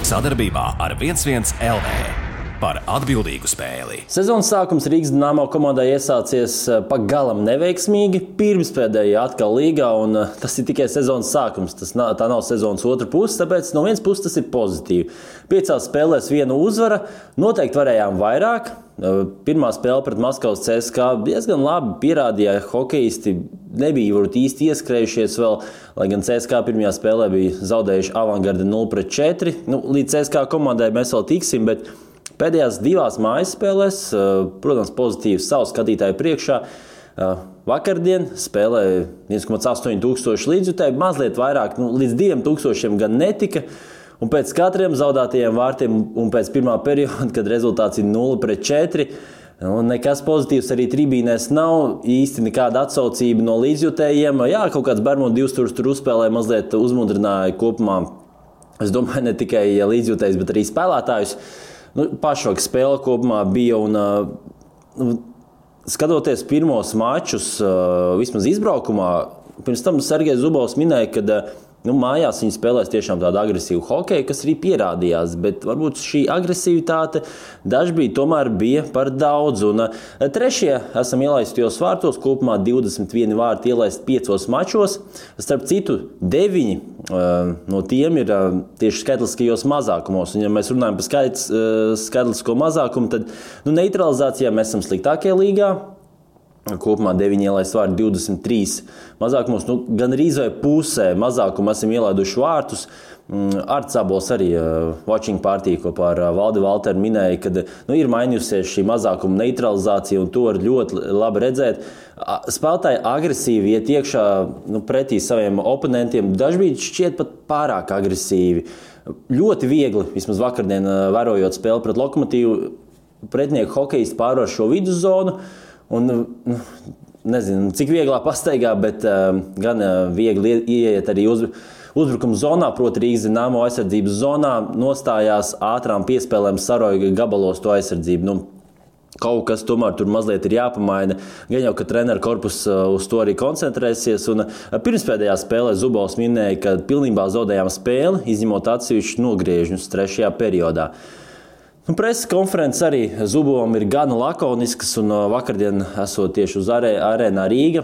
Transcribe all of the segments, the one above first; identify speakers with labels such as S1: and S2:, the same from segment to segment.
S1: Sadarbībā ar 1-1 LV par atbildīgu spēli.
S2: Sezonas sākums Rīgas Dinamo komandai iesācies pagalam neveiksmīgi, pirmspēdējā atkal līgā, un tas ir tikai sezonas sākums. Tā nav sezonas otra puse, tāpēc no vienas puses tas ir pozitīvi. 5 spēlēs 1 uzvara, noteikti varējām vairāk. Pirmā spēle pret Maskavas CSKA diezgan labi pierādīja, hokejisti nebija varbūt īsti ieskrējušies vēl, lai gan CSKA pirmajā spēlē bija zaudējuši Avangardi 0-4. Līdz CSKA komandai mēs vēl tiksim, bet pēdējās 2 mājas spēlēs, protams, pozitīvs savu skatītāju priekšā. Vakardien spēlēja 1,8 tūkstoši līdzjutēji, mazliet vairāk, līdz 2 tūkstošiem gan netika. Un pēc katriem zaudētajiem vārtiem un pēc pirmā perioda, kad rezultāts ir 0-4, nekas pozitīvs arī tribīnēs nav, īsti nekāda atsaucība no līdzjutējiem. Jā, kaut kāds Bermudu 2 tur uzspēlēja, mazliet uzmudrināja kopumā, es domāju, ne tikai līdzjutējs, bet arī spēlētājus. Pašvaka spēle kopumā bija, un skatoties pirmos mačus, vismaz izbraukumā, pirms tam Sergejs Zubovs minēja, ka mājās viņi spēlēs tiešām tādu agresīvu hokeju, kas arī pierādījās, bet varbūt šī agresivitāte dažbrīd tomēr bija par daudz. Un trešie esam ielaistos vārtos, kopumā 21 vārti ielaist 5 mačos. Starp citu, 9 no tiem ir tieši skaitliskajos mazākumos. Un ja mēs runājam par skaitlisko mazākumu, tad neutralizācijā mēs esam sliktākie līgā. Kopumā 9 ielaist vārti 23 mazākumos, gan arī vai pusē mazākumu esam ielaiduši vārtus. Arts Abols arī watching party kopā ar Valdi Valteru minēja, ka ir mainījusies šī mazākuma neutralizācija, un to var ļoti labi redzēt. Spēlētāji agresīvi iet iekšā pretī saviem oponentiem, dažbrīd šķiet pat pārāk agresīvi. Ļoti viegli, vismaz vakardien vērojot spēli pret Lokomotīvu, pretinieku hokejisti pārvar šo viduszonu. Un, nezinu, cik vieglā pastaigā, bet gan viegli ieiet arī uzbrukuma zonā, proti Rīgas Dinamo aizsardzības zonā, nostājās ātrām piespēlēm saroja gabalos to aizsardzību. Kaut kas tomēr tur mazliet ir jāpamaina. Gan jau, ka treneru korpus uz to arī koncentrēsies. Un pirmspēdējā spēlē Zubovs minēja, ka pilnībā zaudējām spēli, izņemot atsevišķus nogriežņus 3. periodā. Preses konferences arī Zubovam ir gana lakoniskas, un vakardien, esot tieši uz arēnā Rīga,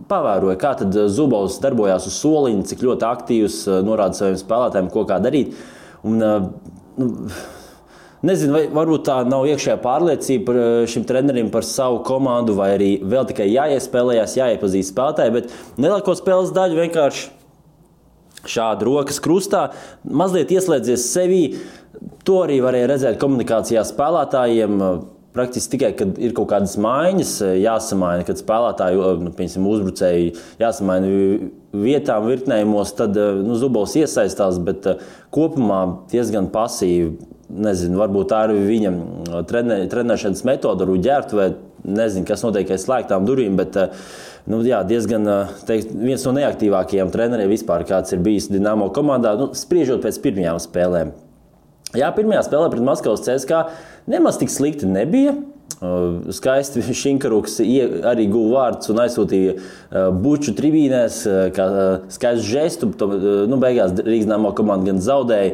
S2: pavēroja, kā tad Zubovs darbojās uz soliņa, cik ļoti aktīvs, norāda saviem spēlētājiem, ko kā darīt. Un, nezinu, vai varbūt tā nav iekšējā pārliecība par šim trenerim, par savu komandu, vai arī vēl tikai jāiespēlējās, jāiepazīst spēlētāji, bet lielāko spēles daļu vienkārši šādi rokas krustā, mazliet ieslēdzies sevī. To arī varēja redzēt komunikācijā spēlētājiem. Praktiski tikai, kad ir kaut kādas maiņas, jāsamaina, kad spēlētāji, uzbrucēji jāsamaina vietām, virknējumos, tad Zubovs iesaistās, bet kopumā diezgan pasīvi. Nezinu, varbūt tā ir viņa trenēšanas metoda, varbūt ģērbtuvē, nezinu, kas notiek aiz slēgtām durvīm, bet diezgan viens no neaktīvākajiem treneriem vispār, kāds ir bijis Dinamo komandā, spriežot pēc pirmajām spēlēm. Jā, pirmajā spēlē pret Maskavas CSKA nemaz tik slikti nebija. Skaisti Šinkaruks arī guva vārdus un aizsūtīja buču tribīnēs, kā skaistu žestu. Beigās Rīgas Dinamo komanda gan zaudēja.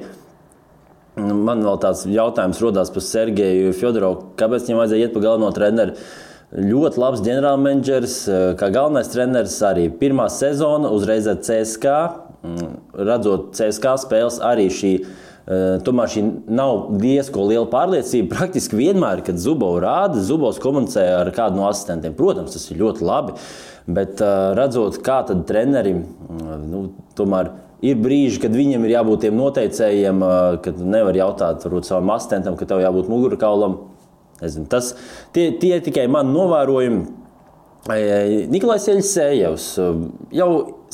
S2: Man vēl tāds jautājums rodās par Sergeju Fjodorovu, kāpēc viņam vajadzēja iet pa galveno treneru. Ļoti labs ģenerālmenedžers, kā galvenais treneris arī. Pirmā sezona uzreiz ar CSKA, redzot CSKA spēles arī tomēr šī nav diezko liela pārliecība. Praktiski vienmēr, kad Zubovs rāda, Zubovs komunicē ar kādu no asistentiem. Protams, tas ir ļoti labi, bet redzot, kā tad treneri, tomēr ir brīži, kad viņiem ir jābūt tiem noteicējiem, kad nevar jautāt varbūt savam asistentam, ka tev jābūt mugurkaulam. Nezinu, tie tikai mani novērojumi. Nikolais Jeļsejevs jau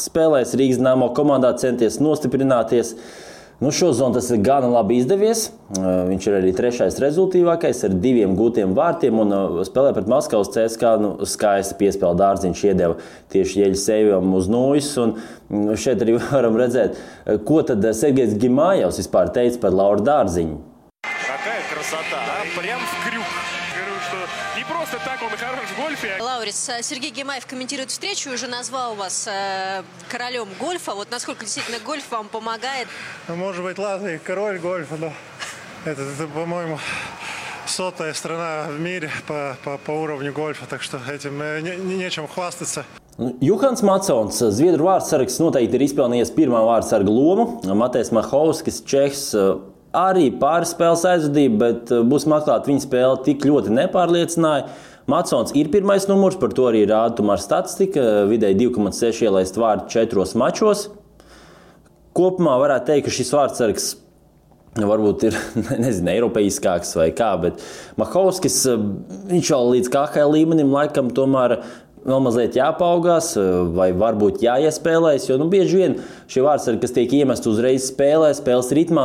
S2: spēlēs Rīgas Dinamo komandā, centies nostiprināties. Šozon tas ir gana labi izdevies. Viņš ir arī 3. rezultīvākais ar 2 gūtiem vārtiem un spēlē pret Maskavas CSKA. Skaisti piespēle dārziņš iedeva tieši Jeļsejevam uz nūjas. Un šeit arī varam redzēt, ko tad Sergejs Gimājevs vispār teica par Lauru Dārziņu.
S3: Какая красота, а? Прям в крюк. Говорю, что Не просто так он хорош в гольфе.
S4: Лаурис, Сергей Гимаев комментирует встречу, уже назвал вас королем гольфа. Вот насколько действительно гольф вам помогает?
S5: Может быть, ладно, и король гольфа, но это по-моему, 100-я страна в мире по уровню гольфа, так что этим нечем хвастаться.
S2: Juhans Matsons, Zviedru vārdsargs, noteikti ir izpelnījies pirmā vārdsarga lomu. Matejs Mahovskis, Čehs, arī pāris spēles aizvadīja, bet būsim atklāti, viņa spēle tik ļoti nepārliecināja. Matsons ir pirmais numurs, par to arī rāda tomēr statistika. Vidēji 2,6 ielaist vārdu 4 mačos. Kopumā varētu teikt, ka šis vārdsargs varbūt ir, nezinu, eiropeiskāks vai kā, bet Mahovskis, viņš jau līdz KHL līmenim laikam tomēr vēl mazliet jāpaugās, vai varbūt jāiespēlēs, jo bieži vien šie vārdsargi, kas tiek iemesti uzreiz spēles ritmā,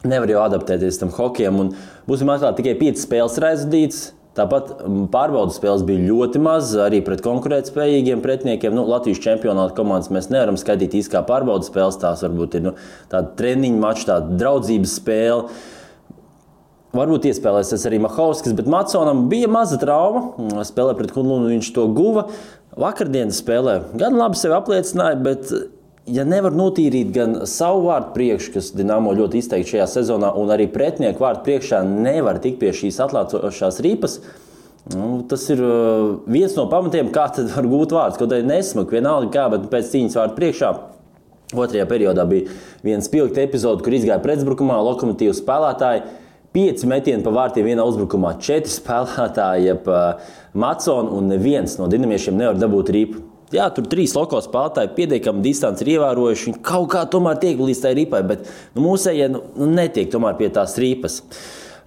S2: nevar jau adaptēties tam hokejam. Un būsim atklāti, tikai 5 spēles ir aizvadītas. Tāpat pārbaudas spēles bija ļoti maz, arī pret konkurētspējīgiem pretiniekiem. Latvijas čempionāta komandas mēs nevaram skaitīt īsti kā pārbaudas spēles. Tās varbūt ir tāda treniņa mača, tāda draudzības spēle. Varbūt iespēlēsies arī Mahovskis, bet Matsonam bija maza trauma. Spēlē pret Kunlunu viņš to guva. Vakardienas spēlē gan labi sevi apliecināja, bet ja nevar notīrīt gan savu vārdu priekšu, kas Dinamo ļoti izteikti šajā sezonā, un arī pretinieku vārdu priekšā nevar tikt pie šīs atlācošās ripas, tas ir viens no pamatiem, kā tad var gūt vārdus. Kaut arī nesmuk, vienalga kā, bet pēc cīņas vārdu priekšā. Otrajā periodā bija viens spilgta epizode, kur izgāja pretuzbrukumā Lokomotīvas spēlētāji. 5 metieni pa vārtiem vienā uzbrukumā, 4 spēlētāji pa Matsonu, un neviens no dinamiešiem nevar dabūt ripu. Jā, tur 3 loko spēlētāji pietiekami distanci ir ievērojuši. Viņi kaut kā tomēr tiek līdz tai ripai, bet mūsējie netiek tomēr pie tās ripas.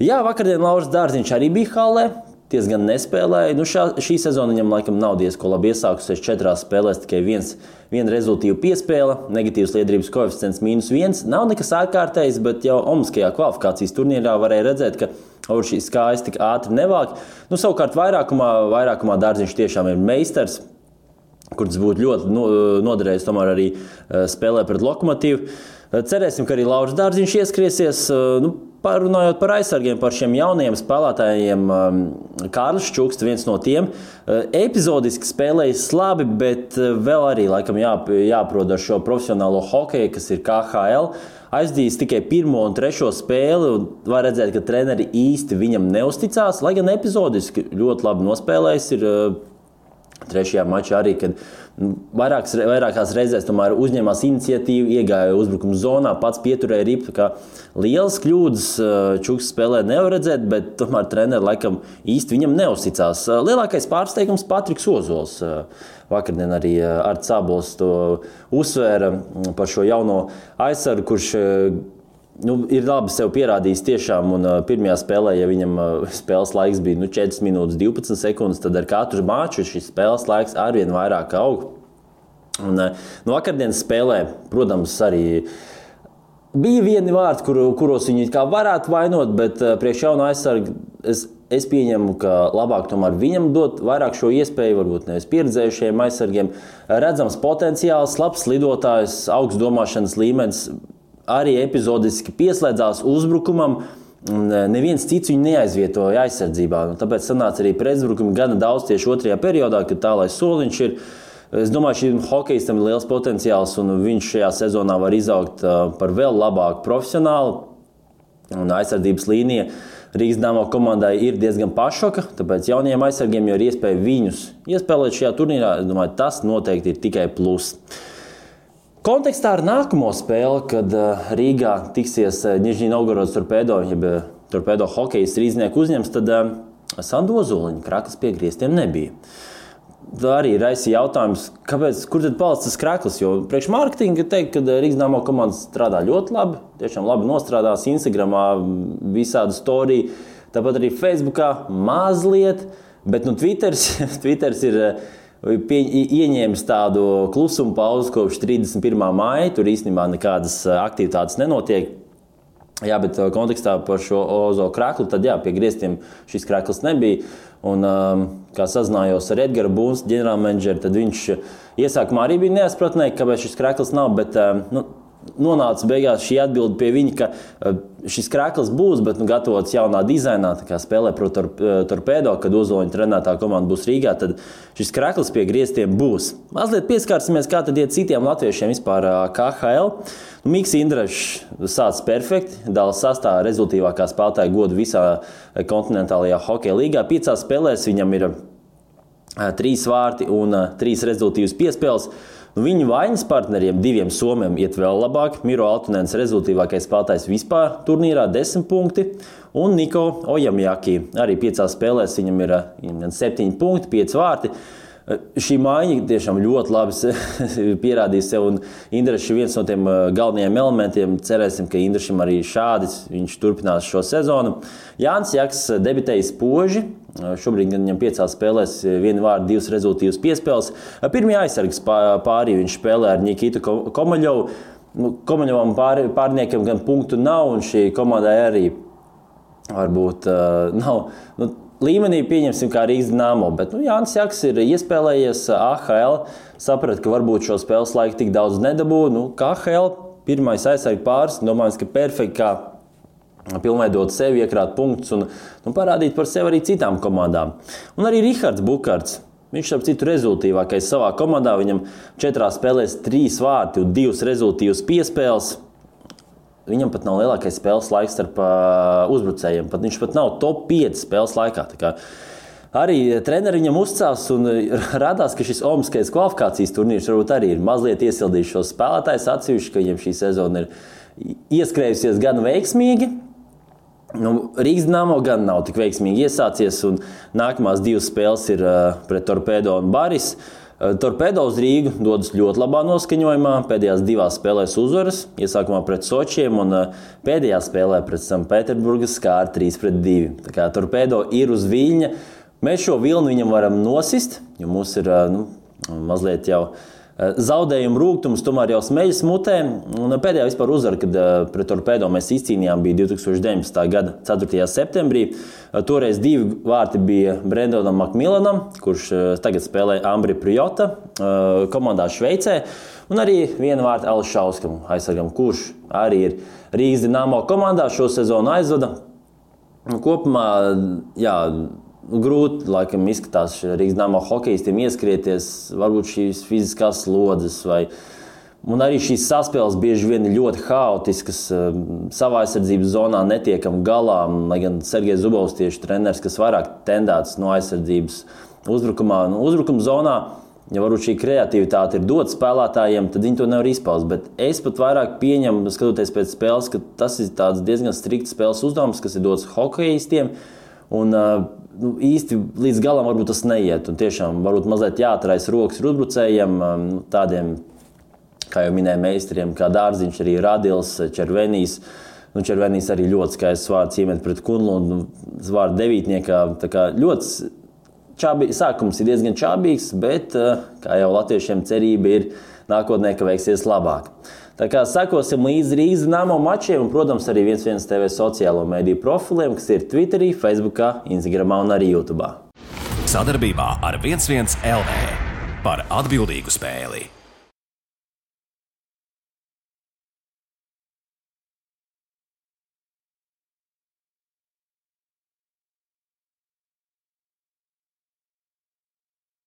S2: Jā, vakardien Lauris Dārziņš arī bija hallē, diezgan nespēlēja. Šī sezona viņam laikam nav diezko labi iesākusies 4 spēlēs, tikai viena rezultīva piespēle, negatīvs liederības koeficients -1. Nav nekas ārkārtējs, bet jau Omaskajā kvalifikācijas turnīrā varēja redzēt, ka šīs kājas tik ātri nevāk. Savukārt vairākumā Dārziņš tiešām ir meistars, kurš būtu ļoti noderējis tomēr arī spēlē pret Lokomotīvu. Cerēsim, ka arī Lauris Dārziņš ieskriesies. Parunājot par aizsargiem, par šiem jaunajiem spēlētājiem, Kārlis Čuksts, viens no tiem, epizodiski spēlējis labi, bet vēl arī laikam jāprot ar šo profesionālo hokeju, kas ir KHL. Aizdījis tikai 1. un 3. spēli, un var redzēt, ka treneri īsti viņam neusticās, lai gan epizodiski ļoti labi nospēlējis ir 3. mačā arī, kad vairākās reizēs tomēr uzņēmās iniciatīvu, iegāja uzbrukuma zonā, pats pieturēja ripu. Lielas kļūdas Čuksts spēlē nevar redzēt, bet tomēr treneri laikam īsti viņam neuzticās. Lielākais pārsteigums Patriks Ozols. Vakardien arī Arts Sābols to uzsvēra par šo jauno aizsargu, kurš ir labi sev pierādījis tiešām, un pirmajā spēlē, ja viņam spēles laiks bija 4 minūtes 12 sekundes, tad ar katru maču šis spēles laiks arvien vairāk aug. Un vakardienas spēlē, protams, arī bija vieni vārdi, kuros viņi kā varētu vainot, bet priekš jauna aizsarga es pieņemu, ka labāk tomēr viņam dot vairāk šo iespēju, varbūt nevis pieredzējušiem aizsargiem. Redzams potenciāls, labs lidotājs, augsts domāšanas līmenis, arī epizodiski pieslēdzās uzbrukumam, un neviens cits viņu neaizvietoja aizsardzībā. Tāpēc sanāca arī pretuzbrukumi gana daudz tieši 2. periodā, kad tālais soliņš ir. Es domāju, šim hokejistam ir liels potenciāls, un viņš šajā sezonā var izaugt par vēl labāku profesionālu. Un aizsardzības līnija Rīgas Dinamo komandai ir diezgan pašoka, tāpēc jaunajiem aizsargiem jau ir iespēja viņus iespēlēt šajā turnīrā. Es domāju, tas noteikti ir tikai plus. Kontekstā ar nākamo spēli, kad Rīgā tiksies Nižņī Novgorodas Torpedo, jeb Torpedo hokejas rīznieku uzņems, tad Sandu Ozoliņa kraklas pie griestiem nebija. Tā arī raisīja jautājums, kur tad palicis tas kraklis, jo priekš mārketinga teikt, ka Rīgas Dinamo komanda strādā ļoti labi, tiešām labi nostrādās Instagramā, visādi storija, tāpat arī Facebookā mazliet, bet Twitters ir ieņēmis tādu klusumu pauzi kopš 31. māja. Tur īstenībā nekādas aktivitātes nenotiek. Jā, bet kontekstā par šo Ozo kraklu, tad jā, pie griestiem šis krakls nebija. Un, kā sazinājos ar Edgara Būns, ģenerālmenedžeru, tad viņš iesākumā arī bija neizpratnē, kāpēc šis krakls nav, bet nonāca beigās šī atbilde pie viņa, ka šis krēkls būs, bet gatavots jaunā dizainā, tā kā spēlē pret Torpedo, kad Ozoliņa trenētā komanda būs Rīgā, tad šis krēkls pie griestiem būs. Mazliet pieskārsimies, kā tad iet citiem latviešiem vispār KHL. Miks Indrašs sāc perfekti, dala sastāvā rezultīvākā spēlētāja godu visā kontinentālajā hokeja līgā. 5 spēlēs viņam ir 3 vārti un 3 rezultīvas piespēles. Viņu vainas partneriem 2 somiem iet vēl labāk. Miro Altunens rezultīvākais spēlētājs vispār turnīrā 10 punkti. Un Niko Ojamjaki arī 5 spēlēs viņam ir 7 punkti, 5 vārti. Šī maiņa tiešām ļoti labi pierādīja sev, un Indrašs ir viens no tiem galvenajiem elementiem. Cerēsim, ka Indrašam arī šādi viņš turpinās šo sezonu. Jānis Jaks debitēja spoži. Šobrīd viņam 5 spēlēs 1 vārdu, 2 rezultīvas piespēles. Pirmie aizsargas pārī viņš spēlē ar Nikitu Komaļovu. Komaļovam pārniekam gan punktu nav, un šī komandai arī varbūt nav līmenī, pieņemsim, kā Rīgas Dinamo. Bet Jānis Jaks ir iespēlējies AHL, saprata, ka varbūt šo spēles laiku tik daudz nedabū. KHL pirmais aizsarga pāris, domājams, ka perfekti kā pilnveidot sevi, iekrāt punktus un parādīt par sevi arī citām komandām. Un arī Rihards Bukarts. Viņš ap citu rezultīvākais savā komandā. Viņam 4 spēlēs 3 vārti un 2 rezultīvas piespēles. Viņam pat nav lielākais spēles laiks starp uzbrucējiem. Viņš pat nav top 5 spēles laikā. Tā kā arī treneri viņam uzcās un radās, ka šis olimpiskais kvalifikācijas turnīrs varbūt arī ir mazliet iesildījis šos spēlētājus atsevišķi, ka viņam šī sezona ir ieskrējusies gan veiksmīgi. Rīgas Dinamo gan nav tik veiksmīgi iesācies, un nākamās 2 spēles ir pret Torpedo un Baris. Torpedo uz Rīgu dodas ļoti labā noskaņojumā, pēdējās 2 spēlēs uzvaras, iesākumā pret Sočiem un pēdējā spēlē pret Sanktpēterburgas skāra 3-2. Tā kā Torpedo ir uz viļņa. Mēs šo vilni viņam varam nosist, jo mums ir mazliet jau zaudējumu rūgtums, tomēr jau smeļas mutē. Un pēdējā vispār uzvara, kad pret Torpedo mēs izcīnījām, bija 2019. gada 4. septembrī. Toreiz 2 vārti bija Brendonam Makmilanam, kurš tagad spēlē Ambri Prijota komandā Šveicē. Un arī 1 vārti Ališauskam aizsargam, kurš arī ir Rīgas Dinamo komandā šo sezonu aizvada. Kopumā, grūti, laikam, izskatās Rīgas Dinamo hokejistiem ieskrieties, varbūt šīs fiziskās slodzes un arī šīs saspēles bieži vien ir ļoti haotiskas, savā aizsardzības zonā netiekam galā, lai gan Sergejs Zubovs tieši treneris, kas vairāk tendēts no aizsardzības uzbrukumā. Uzbrukuma zonā, ja varbūt šī kreativitāte ir dota spēlētājiem, tad viņi to nevar izpaust, bet es pat vairāk pieņemu, skatoties pēc spēles, ka tas ir tāds diezgan strikts spēles uzdevums, kas ir dots hokejistiem, un īsti līdz galam varbūt tas neiet. Un tiešām varbūt mazliet jāatrais rokas ir uzbrucējiem, tādiem, kā jau minēja meistariem, kā Dārziņš, arī Radils, Červenijs. Červenijs arī ļoti skaists vārds iemet pret Kunlu, vārdu devītniekā. Tā kā ļoti sākums ir diezgan čābīgs, bet, kā jau latviešiem cerība ir nākotnē, ka veiksies labāk. Tā kā sekosim līdzi Rīgas Dinamo mačiem un, protams, arī 1-1 TV sociālo mediju profiliem, kas ir Twitterī, Facebookā, Instagramā un arī YouTubā.
S1: Sadarbībā ar 1-1 LV par atbildīgu spēli.